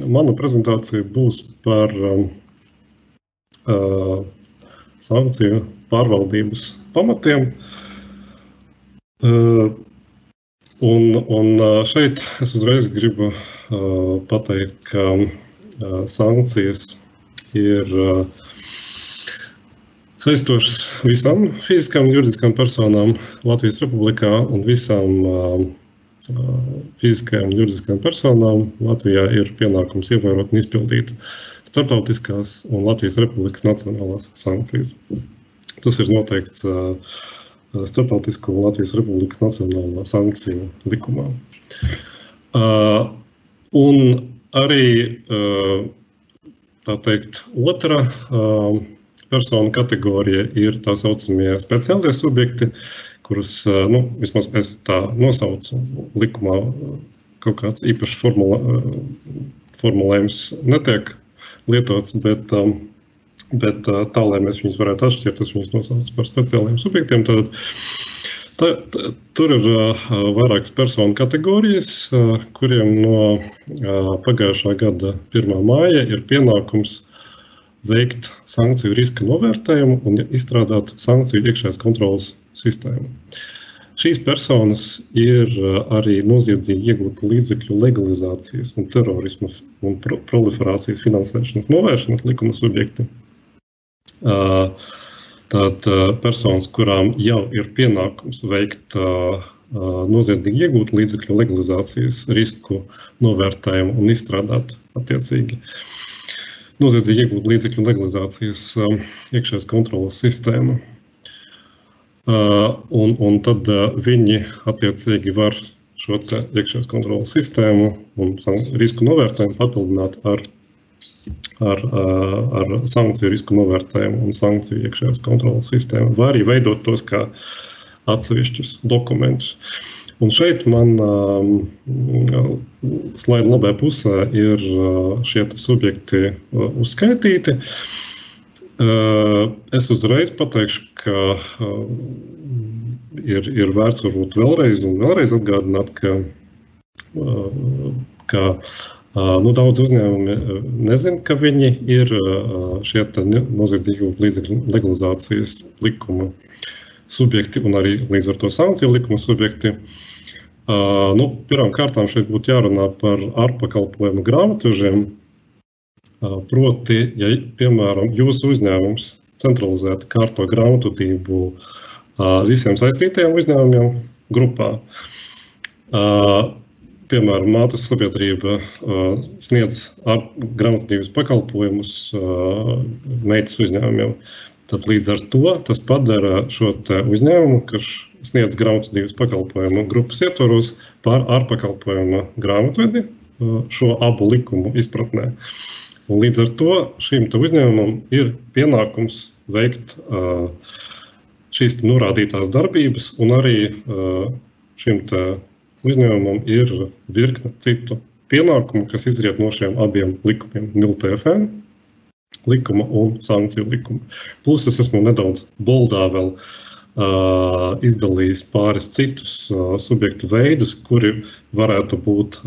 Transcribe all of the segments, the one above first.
mana prezentācija būs par sankciju pārvaldības pamatiem. Un šeit es uzreiz gribu pateikt, ka sankcijas ir saistošas visām fiziskām un juridiskām personām Latvijas Republikā un visām fiziskajām un juridiskajām personām Latvijā ir pienākums ievērot un izpildīt starptautiskās un Latvijas Republikas nacionālās sankcijas. Tas ir noteikts Starptautisko un Latvijas Republikas nacionālā sankciju likumā. Un arī, tā teikt, otra personu kategorija ir tā saucamie speciālie subjekti, kurus, vismaz es tā nosaucu likumā, kaut kāds īpašs formulējums netiek lietots, bet tā, lai mēs viņus varētu atšķirt, tas viņus nosauc par speciāliem subjektiem. Tur ir vairākas personu kategorijas, kuriem no pagājušā gada 1. māja ir pienākums veikt sankciju riska novērtējumu un izstrādāt sankciju iekšējās kontrolas sistēmu. Šīs personas ir arī noziedzīgi iegūta līdzekļu legalizācijas un terorisma un proliferācijas finansēšanas novēršanas likuma subjekti. Tātad personas, kurām jau ir pienākums veikt noziedzīgi iegūt līdzekļu legalizācijas risku novērtējumu un izstrādāt attiecīgi noziedzīgi iegūt līdzekļu legalizācijas iekšējās kontrolas sistēmu. Un tad viņi attiecīgi var šo iekšējās kontrolas sistēmu un risku novērtējumu papildināt ar sankciju risku novērtējumu un sankciju iekšējās kontrolas sistēmu, vai arī veidot tos kā atsevišķus dokumentus. Un šeit man slaida labajā pusē ir šie subjekti uzskaitīti. Es uzreiz pateikšu, ka ir vērts varbūt vēlreiz atgādināt, ka daudz uzņēmumi nezin, ka viņi ir šie noziedzīgi līdzekļu legalizācijas likuma subjekti un arī līdz ar to sankciju likuma subjekti. Pirmām kārtām šeit būtu jārunā par ārpakalpojumu grāmatvežiem. Proti, ja, piemēram, jūsu uzņēmums centralizēti kārto grāmatvedību visiem saistītajiem uzņēmumiem grupā. Piemēram, mātes sabiedrība sniedz grāmatvedības pakalpojumus meitas uzņēmumiem. Tad līdz ar to tas padara šo uzņēmumu, kas sniedz grāmatvedības pakalpojumu grupas ietvaros par ārpakalpojuma grāmatvedi šo abu likumu izpratnē. Un līdz ar to šim uzņēmumam ir pienākums veikt šīs norādītās darbības, un arī šim uzņēmumam ir virkne citu pienākumu, kas izriet no šiem abiem likumiem, MILTFN likuma un sankciju likuma. Plus es esmu nedaudz boldā vēl izdalījis pāris citus subjektu veidus, kuri varētu būt,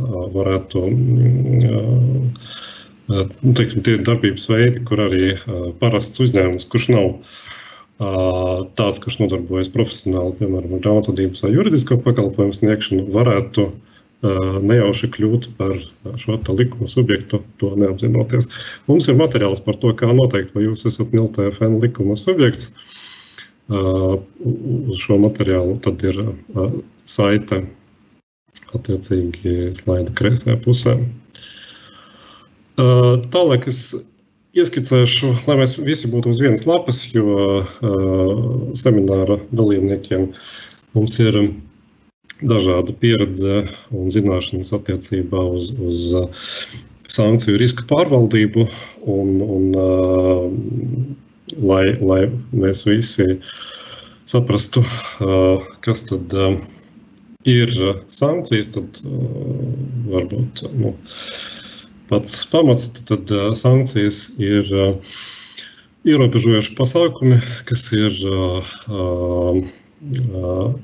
tie darbības veidi, kur arī parasts uzņēmums, kurš nav tāds, kurš nodarbojas profesionāli, piemēram, grāmatvedības vai juridisko pakalpojumu sniegšanu, varētu nejauši kļūt par šo likuma subjektu, to neapzinoties. Mums ir materiāls par to, kā noteikt, vai jūs esat MILTFN likuma subjekts. Uz šo materiālu tad ir saite attiecīgi slaida kreisajā pusē. Tālāk es ieskicēšu, lai mēs visi būtu uz vienas lapas, jo semināra dalībniekiem mums ir dažāda pieredze un zināšanas attiecībā uz sankciju risku pārvaldību, un lai mēs visi saprastu, kas tad ir sankcijas, tad varbūt pats pamats, tad sankcijas ir ierobežojoši pasākumi, kas ir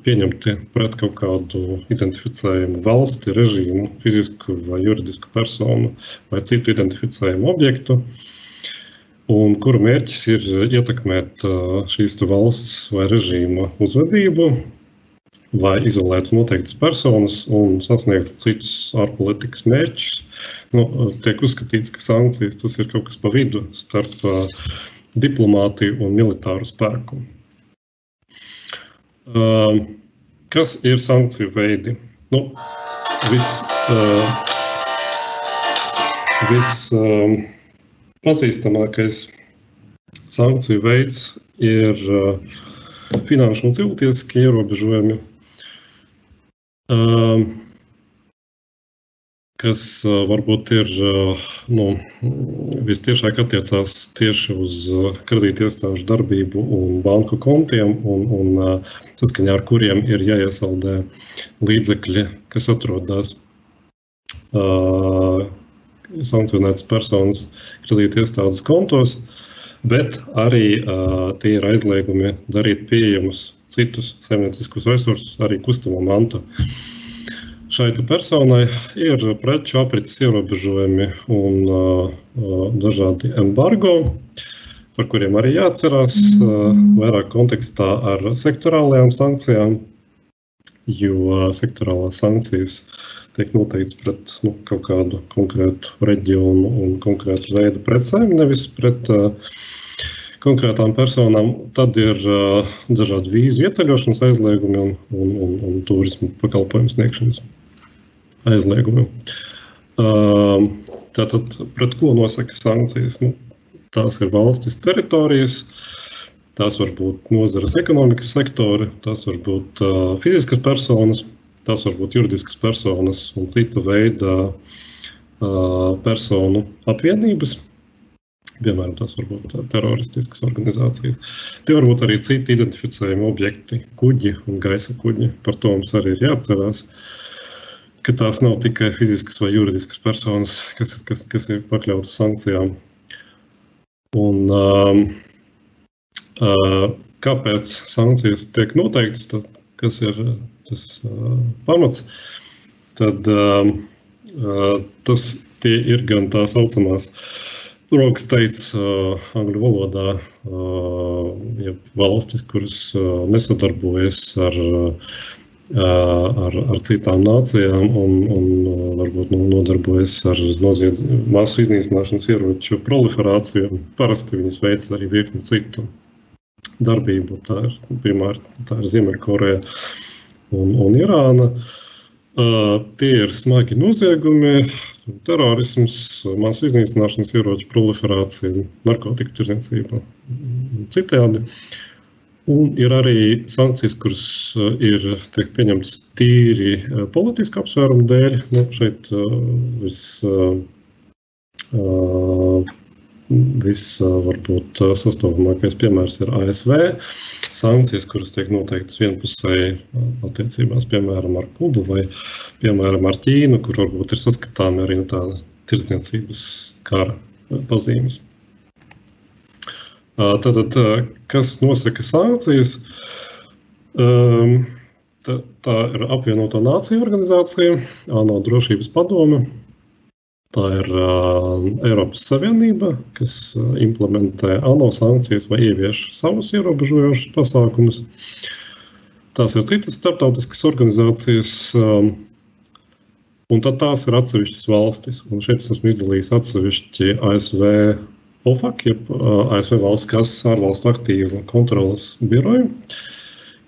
pieņemti pret kaut kādu identificējumu valsti, režīmu, fizisku vai juridisku personu vai citu identificējumu objektu, un kuru mērķis ir ietekmēt šīs valsts vai režīma uzvedību vai izolēt noteiktas personas un sasniegt citus ārpolitikas mērķus. Tiek uzskatīts, ka sankcijas tas ir kaut kas pa vidu starp diplomātiju un militāru spēku. Kas ir sankciju veidi? Pazīstamākais sankciju veids ir finanšu un cilvēktiesiskie ierobežojumi, kas varbūt ir vistiešāk attiecās tieši uz kredītiestāžu darbību un banku kontiem, un saskaņā ar kuriem ir jāiesaldē līdzekļi, kas atrodas sankcionētas personas kredītiestādes kontos, bet arī tie ir aizliegumi darīt pieejamus citus saimnieciskus resursus, arī kustamo mantu. Šai personai ir preču aprites ierobežojumi un dažādi embargo, par kuriem arī jāatcerās vairāk kontekstā ar sektorālajām sankcijām, jo sektorālās sankcijas tiek noteikts pret kaut kādu konkrētu reģionu un konkrētu veidu precēm, nevis pret konkrētām personām. Tad ir dažādi vīzu ieceļošanas aizliegumi un turismu pakalpojumu sniegšanas aizliegumi. Tātad, pret ko nosaka sankcijas? Tās ir valstis teritorijas, tās var būt nozares ekonomikas sektori, tās var būt fiziskas personas, tās var būt juridiskas personas un cita veida personu apvienības. Piemēram, tās var būt teroristiskas organizācijas. Tie var būt arī citi identificējumi objekti, kuģi un gaisa kuģi. Par to mums arī ir jāatcerās, ka tās nav tikai fiziskas vai juridiskas personas, kas ir pakļautas sankcijām. Un kāpēc sankcijas tiek noteiktas, kas ir tas pamats, tad tie ir gan tā saucamās rokas teicis angļu valodā, ja valstis, kuras nesadarbojas ar citām nācijām un varbūt nodarbojas ar masu iznīcināšanas ieroču proliferāciju. Parasti viņas veic arī virkni citu darbību. Tā ir Ziemeļkoreja un Irāna. Tie ir smagi noziegumi, terorisms, masu iznīcināšanas ieroču proliferācija, narkotiku tirdzniecība un citējādi. Un ir arī sankcijas, kuras tiek pieņemtas tīri politiska apsvērumu dēļ. Šeit varbūt sastopamākais piemērs ir ASV. Sankcijas, kuras tiek noteiktas vienpusēji attiecībās, piemēram, ar Kubu vai, piemēram, ar Ķīnu, kur varbūt ir saskatāmi arī tāda tirdzniecības kara pazīmes. Tātad, kas nosaka sankcijas? Tā ir Apvienoto Nāciju organizācija, ANO drošības padome. Tā ir Eiropas Savienība, kas implementē ANO sankcijas vai ievieš savus ierobežojošus pasākumus. Tās ir citas starptautiskas organizācijas, un tad tās ir atsevišķas valstis. Un šeit esmu izdalījis atsevišķi ASV OFAC, jeb ASV valsts kases ārvalstu aktīvu kontrolas biroju,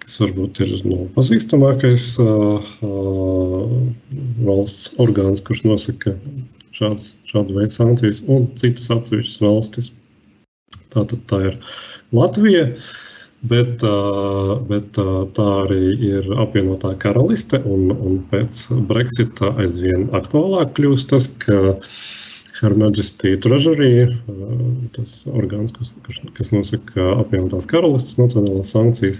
kas varbūt ir pazīstamākais valsts orgāns, kurš nosaka šādu veidu sankcijas, un citas atsevišķas valstis. Tātad tā ir Latvija, bet tā arī ir apvienotā karaliste, un pēc Brexita aizvien aktuālāk kļūst tas, ka Her Majesty Treasury, tas orgāns, kas nosaka apvienotās karalistes nacionālās sankcijas,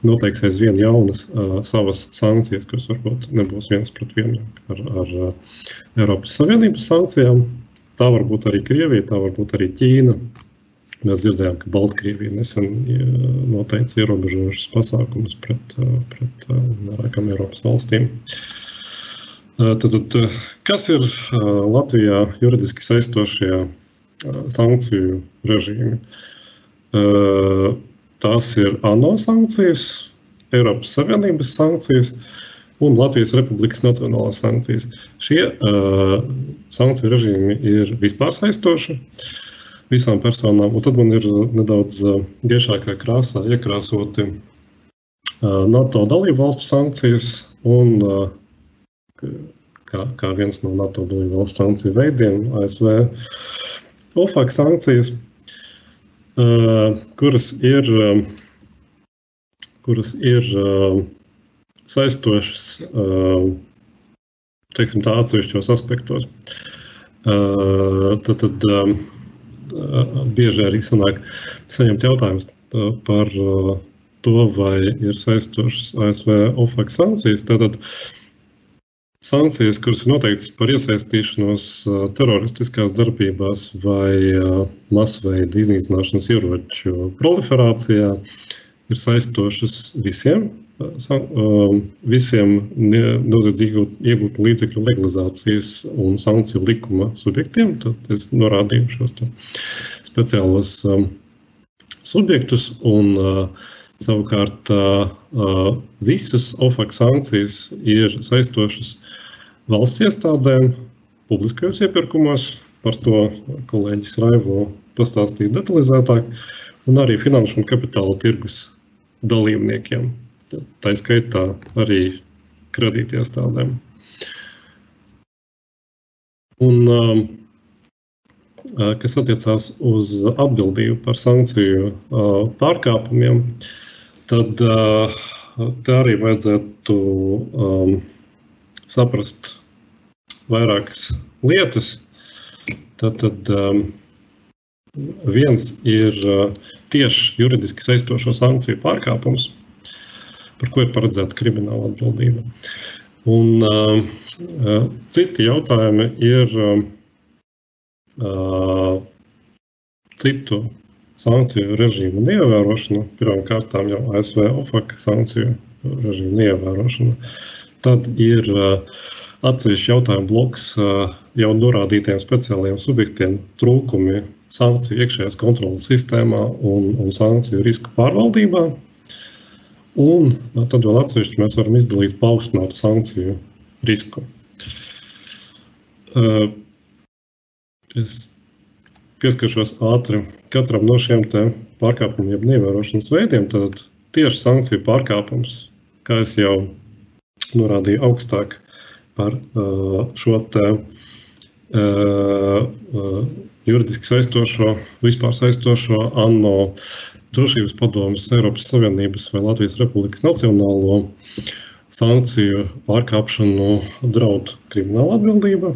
noteiks aizvien jaunas savas sankcijas, kuras varbūt nebūs viens pret vienu ar Eiropas Savienības sankcijām. Tā var būt arī Krievija, tā var būt arī Ķīna. Mēs dzirdējām, ka Baltkrievija nesen noteica ierobežojušas pasākumus pret vairākām Eiropas valstīm. Tad, kas ir Latvijā juridiski saistošie sankciju režīmi? Tās ir ANO sankcijas, Eiropas Savienības sankcijas un Latvijas Republikas nacionālās sankcijas. Šie sankciju režīmi ir vispār saistoši visām personām, un tad man ir nedaudz gaišākā krāsā iekrāsoti NATO dalību valstu sankcijas un kā viens no NATO dalību valstu sankciju veidiem ASV OFAC sankcijas, kuras ir saistošas, teiksim tā, atsevišķos aspektos. Tad bieži arī sanāk saņemt jautājumus par to, vai ir saistošas ASV OFAC sankcijas. Tātad sankcijas, kuras ir noteiktas par iesaistīšanos teroristiskās darbībās vai masveida iznīcināšanas ieroču proliferācijā, ir saistošas visiem noziedzīgi iegūtu līdzekļu legalizācijas un sankciju likuma subjektiem. Tad es norādīju šos speciālos subjektus, un savukārt visas OFAC sankcijas ir saistošas valsts iestādēm publiskajos iepirkumos, par to kolēģis Raivo pastāstīja detalizētāk, un arī finanšu un kapitāla tirgus dalībniekiem. Tā skaitā arī kredītiestādēm. Un, kas attiecās uz atbildību par sankciju pārkāpumiem, tad te arī vajadzētu saprast vairākas lietas. Tad viens ir tieši juridiski saistošo sankciju pārkāpums, par ko ir paredzēta krimināla atbildība. Un citi jautājumi ir citu sankciju režīmu neievērošana, pirmām kārtām jau ASV OFAC sankciju režīmu neievērošana. Tad ir atsevišķi jautājumu bloks jau norādītiem speciālajiem subjektiem trūkumi sankciju iekšējās kontrolas sistēmā un sankciju risku pārvaldībā. Un tad vēl atsevišķi mēs varam izdalīt paaugstinātu sankciju risku. Es pieskaršos ātri katram no šiem te pārkāpumiem jeb neievērošanas veidiem. Tad tieši sankciju pārkāpums, kā es jau norādīju augstāk par šo te juridiski saistošo, vispār saistošo ANO Drošības padomes, Eiropas Savienības vai Latvijas Republikas nacionālo sankciju pārkāpšanu draud krimināla atbildība.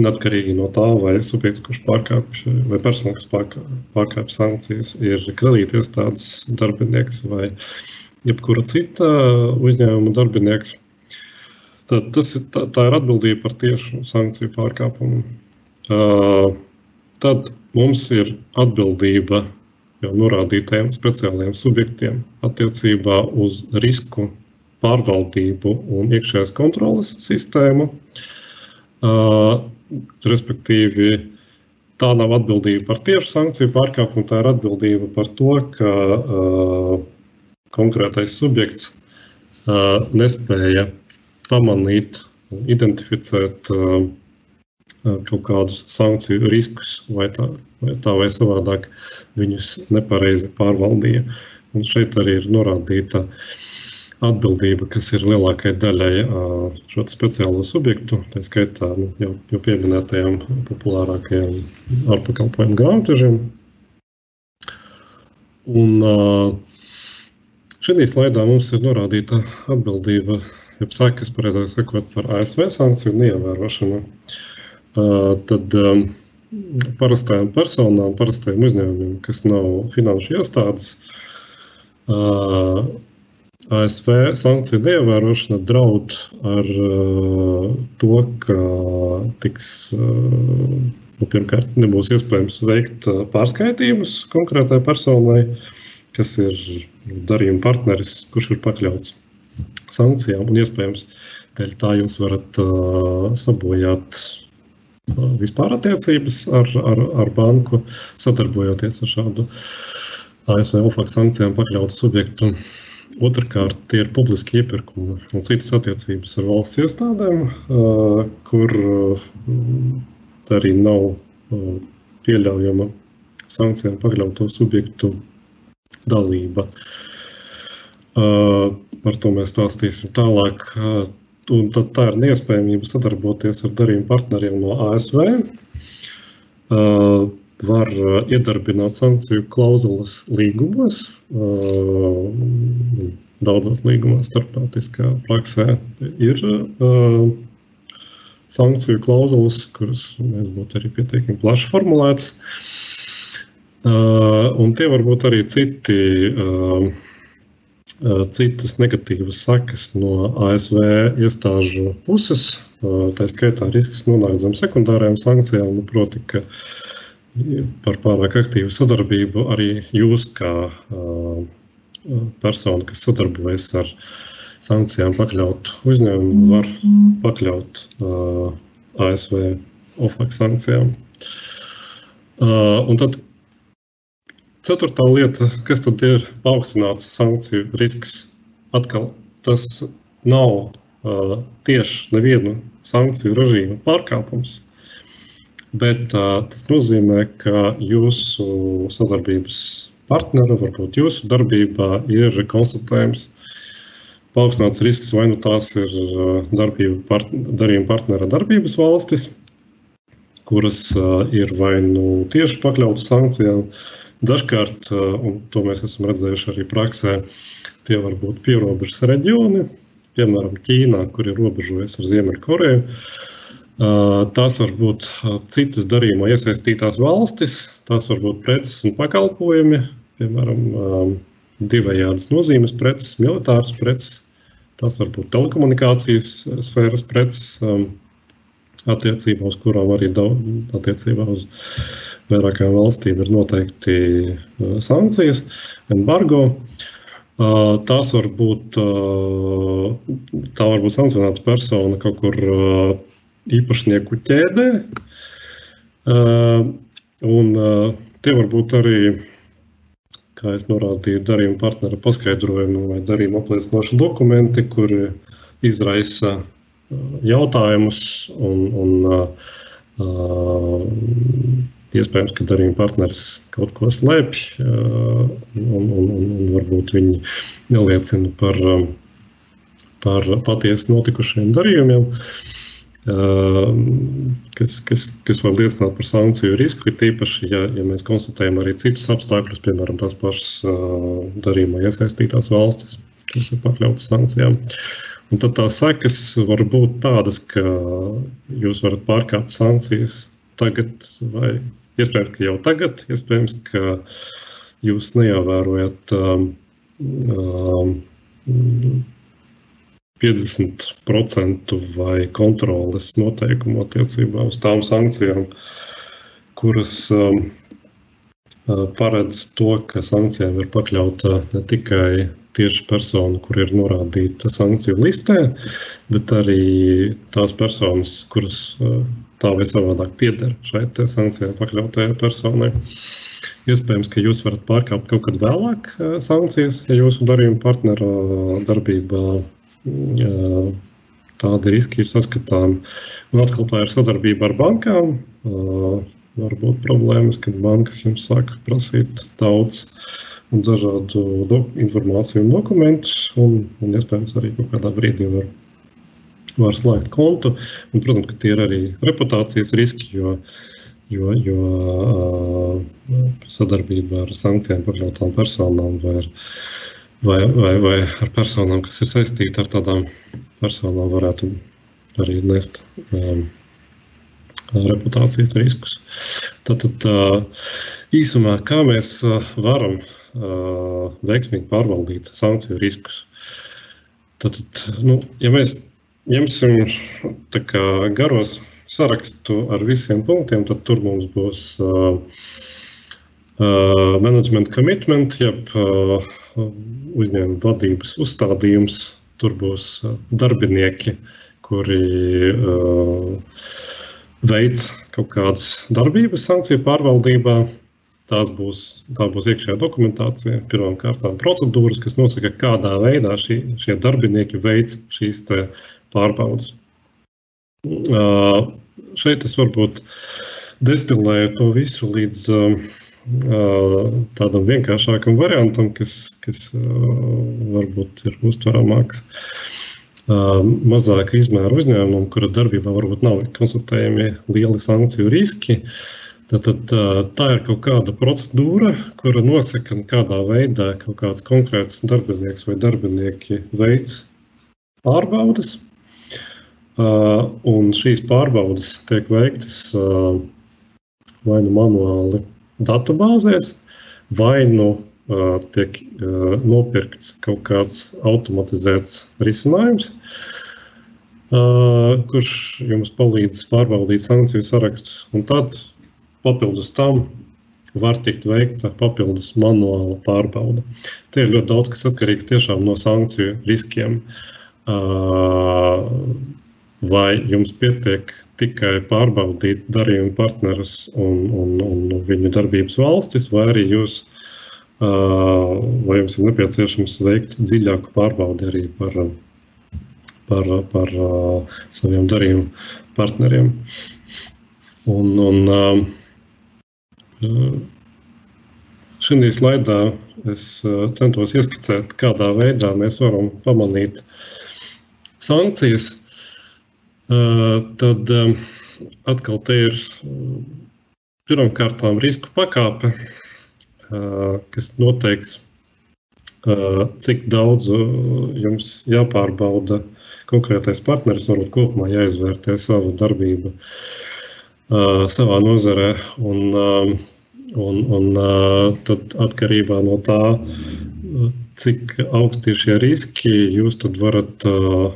Neatkarīgi no tā, vai subjekts, kurš pārkāpj, vai persona, kas pārkāpj sankcijas, ir kredītiestādes darbinieks vai jebkura cita uzņēmuma darbinieks. Tad tā ir atbildība par tiešu sankciju pārkāpumu. Tad mums ir atbildība jau norādītajiem speciālajiem subjektiem attiecībā uz risku pārvaldību un iekšējās kontroles sistēmu. Respektīvi, tā nav atbildība par tiešu sankciju pārkāpumu, tā ir atbildība par to, ka konkrētais subjekts nespēja pamanīt un identificēt kaut kādus sankciju riskus vai tā vai savādāk viņus nepareizi pārvaldīja. Un šeit arī ir norādīta atbildība, kas ir lielākai daļai šo speciālo subjektu, tā skaitā jau pieminētajām populārākajām ārpakalpojumu grāmatvežiem. Un šī slaidā mums ir norādīta atbildība, jeb sekas, pareizāk sakot, par ASV sankciju neievērošanu. Tad parastajām personām, parastajiem uzņēmumiem, kas nav finanšu iestādes, ASV sankciju neievērošana draud ar to, ka tiks pirmkārt nebūs iespējams veikt pārskaitījumus konkrētai personai, kas ir darījuma partneris, kurš ir pakļauts sankcijām, un iespējams dēļ tā jūs varat sabojāt vispār attiecības ar banku, sadarbojoties ar šādu ASV OFAC sankcijām pakļautu subjektu. Otrkārt, tie ir publiski iepirkumi un citas attiecības ar valsts iestādēm, kur arī nav pieļaujama sankcijām pakļauto subjektu dalība. Par to mēs stāstīsim tālāk. Un tad tā ir neiespējamība sadarboties ar darījuma partneriem no ASV. Var iedarbināt sankciju klauzulas līgumos. Daudzos līgumos starptautiskā praksē ir sankciju klauzulas, kuras mēs būtu arī pietiekami plaši formulētas. Un tie var būt arī citas negatīvas sekas no ASV iestāžu puses. Tā skaitā risks nonākt zem sekundārajām sankcijām, proti, ka par pārāk aktīvu sadarbību arī jūs kā persona, kas sadarbojas ar sankcijām pakļaut uzņēmumu, var pakļaut ASV OFAC sankcijām. Un tad ceturtā lieta, kas tad ir paaugstināts sankciju risks, atkal tas nav tieši nevienu sankciju režīmu pārkāpums, bet tas nozīmē, ka jūsu sadarbības partnera, varbūt jūsu darbībā ir konstatējums paaugstināts risks, vai nu tās ir darījuma partnera darbības valstis, kuras ir vai nu tieši pakļautas sankcijām. Dažkārt, un to mēs esam redzējuši arī praksē, tie var būt pierobežas reģioni, piemēram, Ķīnā, kur ir robežojas ar Ziemeļkoreju. Tās var būt citas darījumā iesaistītās valstis, tās var būt preces un pakalpojumi, piemēram, divējādas nozīmes preces, militāras preces, tās var būt telekomunikācijas sfēras preces, attiecībā uz kurām arī attiecībā uz vairākām valstīm ir noteikti sankcijas, embargo. Tā var būt sankcionēta persona kaut kur īpašnieku ķēdē, un tie var būt arī, kā es norādīju, darījuma partnera paskaidrojumi vai darījuma apliecinoši dokumenti, kuri izraisa jautājumus un iespējams, ka darījuma partneris kaut ko slēpj un varbūt viņi neliecina par patiesi notikušiem darījumiem, kas var liecināt par sankciju risku, tīpaši, ja mēs konstatējam arī citus apstākļus, piemēram, tās pašas darījumā iesaistītās valstis, kas ir pakļautas sankcijām. Un tad tās sekas var būt tādas, ka jūs varat pārkāpt sankcijas tagad, vai iespējams, ka jau tagad, iespējams, ka jūs neievērojat 50% vai kontroles noteikumu attiecībā uz tām sankcijām, kuras paredz to, ka sankcijām ir pakļauta ne tikai tieši persona, kur ir norādīta sankciju listē, bet arī tās personas, kuras tā vai savādāk pieder šai sankcijām pakļautajai personai. Iespējams, ka jūs varat pārkāpt kaut kad vēlāk sankcijas, ja jūsu darījuma partnera darbībā tādi riski ir saskatāmi. Un atkal tā ir sadarbība ar bankām. Var būt problēmas, kad bankas jums sāk prasīt daudz un dažādu informāciju un dokumentus, un iespējams arī kaut kādā brīdī var slēgt kontu. Un, protams, ka tie ir arī reputācijas riski, jo sadarbība ar sankcijām pakļautām personām vai ar personām, kas ir saistīti ar tādām personām, varētu arī nest reputācijas riskus. Tātad īsumā, kā mēs varam veiksmīgi pārvaldīt sankciju riskus. Tātad, ja mēs ņemsim tā kā garos sarakstu ar visiem punktiem, tad tur mums būs management commitment, jeb uzņēmuma vadības uzstādījums. Tur būs darbinieki, kuri veic kaut kādas darbības sankciju pārvaldībā. Tā būs iekšējā dokumentācija, pirmām kārtām procedūras, kas nosaka, kādā veidā šie darbinieki veic šīs te pārbaudas. Šeit es varbūt destilēju to visu līdz tādam vienkāršākam variantam, kas varbūt ir uztveramāks mazāka izmēra uzņēmumam, kura darbībā varbūt nav konstatējami lieli sankciju riski. Tad tā ir kaut kāda procedūra, kura nosaka, kādā veidā kaut kāds konkrēts darbinieks vai darbinieki veic pārbaudas. Un šīs pārbaudas tiek veiktas vai nu manuāli datubāzēs, vai nu tiek nopirkts kaut kāds automatizēts risinājums, kurš jums palīdz pārbaudīt sankciju sarakstus. Un tad papildus tam var tikt veikta papildus manuāla pārbauda. Te ir ļoti daudz, kas atkarīgs tiešām no sankciju riskiem. Vai jums pietiek tikai pārbaudīt darījuma partnerus un viņu darbības valstis, vai arī vai jums ir nepieciešams veikt dziļāku pārbaudi arī par saviem darījuma partneriem. Šī slaidā es centos ieskicēt, kādā veidā mēs varam pamanīt sankcijas. Tad atkal te ir pirmkārtām risku pakāpe, kas noteiks, cik daudz jums jāpārbauda konkrētais partneris, varbūt kopumā jāizvērtē savu darbību savā nozarē, un tad atkarībā no tā, cik augsti ir šie riski, jūs tad varat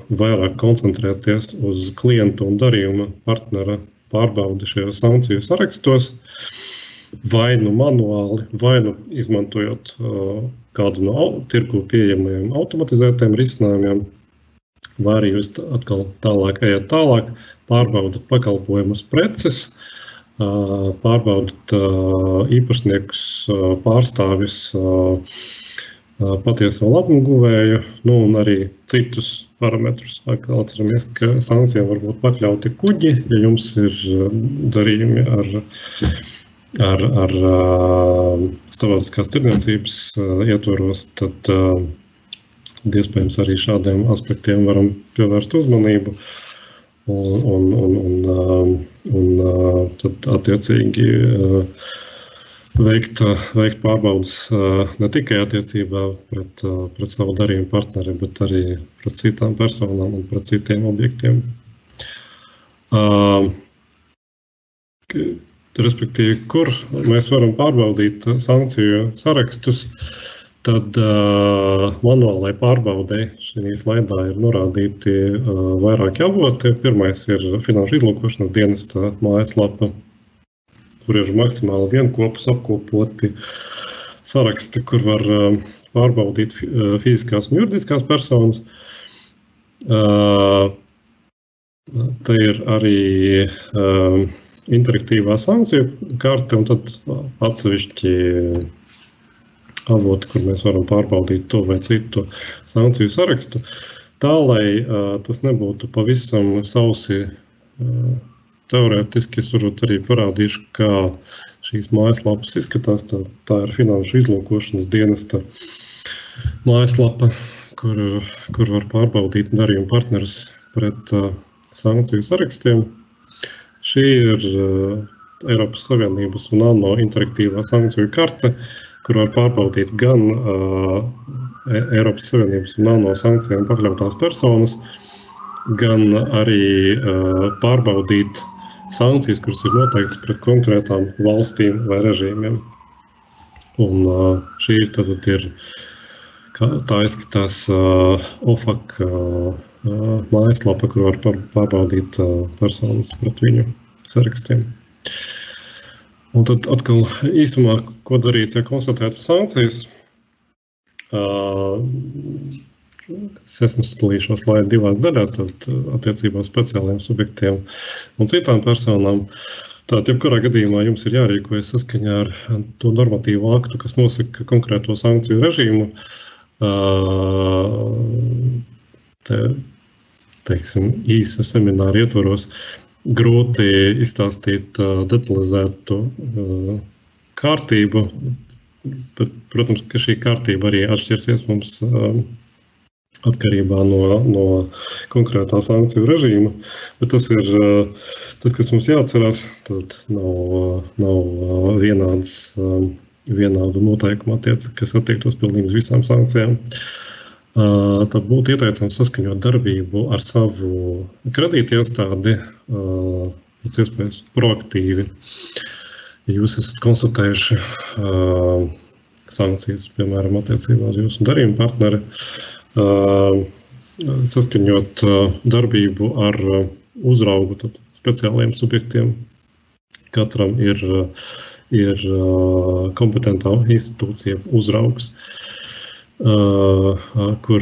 vairāk koncentrēties uz klientu un darījuma partnera pārbaudi šajos sankciju sarakstos, vai nu manuāli, vai nu izmantojot kādu no tirgu pieejamajiem automatizētiem risinājumiem, vai arī jūs atkal ejat tālāk, pārbaudat pakalpojumus preces, pārbaudat īpašniekus, pārstāvis, patieso labumu guvēju, un arī citus parametrus. Atceramies, ka sankcijām var būt pakļauti kuģi, ja jums ir darījumi ar starptautiskās tirdzniecības ietvaros, tad iespējams arī šādiem aspektiem varam pievērst uzmanību un tad attiecīgi veikt pārbaudas ne tikai attiecībā pret savu darījumu partneri, bet arī pret citām personām un pret citiem objektiem. Respektīvi, kur mēs varam pārbaudīt sankciju sarakstus, tad manuālai pārbaudei šī slaidā ir norādīti vairāki avoti. Pirmais ir Finanšu izlūkošanas dienesta mājaslapa, kur ir maksimāli vienkopus apkopoti saraksti, kur var pārbaudīt fiziskās un juridiskās personas. Te ir arī interaktīvā sankciju karte un tad atsevišķi avoti, kur mēs varam pārbaudīt to vai citu sankciju sarakstu. Tā, lai tas nebūtu pavisam sausi teorētiski, es varbūt arī parādīšu, kā šīs mājaslapas izskatās. Tā ir Finanšu izlūkošanas dienesta mājaslapa, kur var pārbaudīt darījumu partnerus pret sankciju sarakstiem. Šī ir Eiropas Savienības un ANO interaktīvā sankciju karte, kur var pārbaudīt gan Eiropas Savienības un ANO sankcijām pakļautās personas, gan arī pārbaudīt sankcijas, kuras ir noteiktas pret konkrētām valstīm vai režīmiem. Un šī tad ir, tā izskatās OFAC mājaslapa, kur var pārbaudīt personas pret viņu sarakstiem. Un tad atkal īsumā, ko darīt, ja konstatētas sankcijas. Es esmu sadalījis šo slaidu divās daļās, tad attiecībā speciāliem subjektiem un citām personām. Tātad, jebkurā gadījumā jums ir jārīkojas saskaņā ar to normatīvu aktu, kas nosaka konkrēto sankciju režīmu. Teiksim, īsa semināra ietvaros grūti izstāstīt detalizētu kārtību, bet, protams, ka šī kārtība arī atšķirsies mums atkarībā no konkrētā sankciju režīma, bet tas ir tas, kas mums jāatcerās, tad nav vienādu noteikumu kas attiektos pilnīgi uz visām sankcijām. Tad būtu ieteicams saskaņot darbību ar savu kredītiestādi, pēc iespējas proaktīvi. Ja jūs esat konstatējuši sankcijas, piemēram, attiecībā uz jūsu darījuma partneri, saskaņot darbību ar uzraugu, tad speciāliem subjektiem. Katram ir kompetentā institūcija uzraugs, kur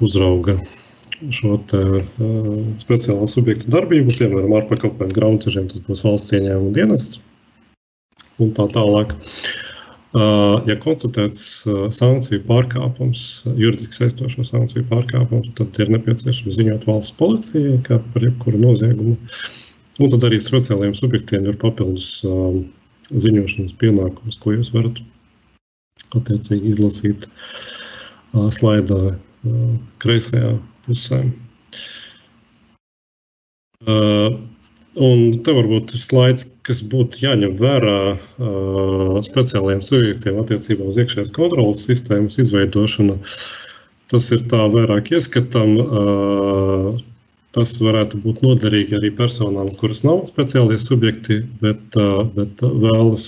uzrauga šo speciālo subjektu darbību, piemēram, ārpakalpojumu grāmatvežiem, tas būs valsts ieņēmuma dienests un tā tālāk. Ja konstatēts sankciju pārkāpums, juridiski saistošo sankciju pārkāpums, tad ir nepieciešams ziņot valsts policijai, kā par jebkuru noziegumu. Un tad arī speciālajiem subjektiem ir papildus ziņošanas pienākums, ko jūs varat attiecīgi izlasīt slaidā kreisajā pusē. Un te varbūt ir slaids, kas būtu jāņem vērā speciālajiem subjektiem attiecībā uz iekšējās kontrolas sistēmas izveidošanu. Tas ir tā vairāk ieskatam. Tas varētu būt noderīgi arī personām, kuras nav speciālie subjekti, bet vēlas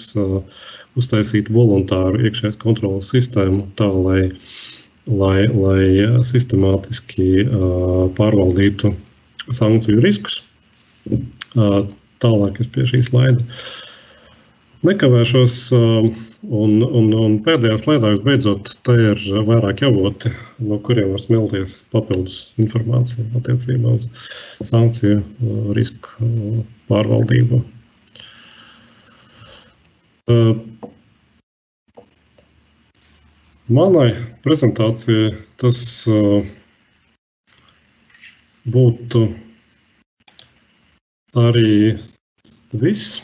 uztaisīt voluntāru iekšējās kontrolas sistēmu tā, lai sistemātiski pārvaldītu sankciju riskus. Tālāk es pie šī slaida nekavēšos, un pēdējā slaidā visbeidzot, te ir vairāk avoti, no kuriem var smelties papildus informācija attiecībā uz sankciju risku pārvaldību. Manai prezentācijai tas būtu arī viss.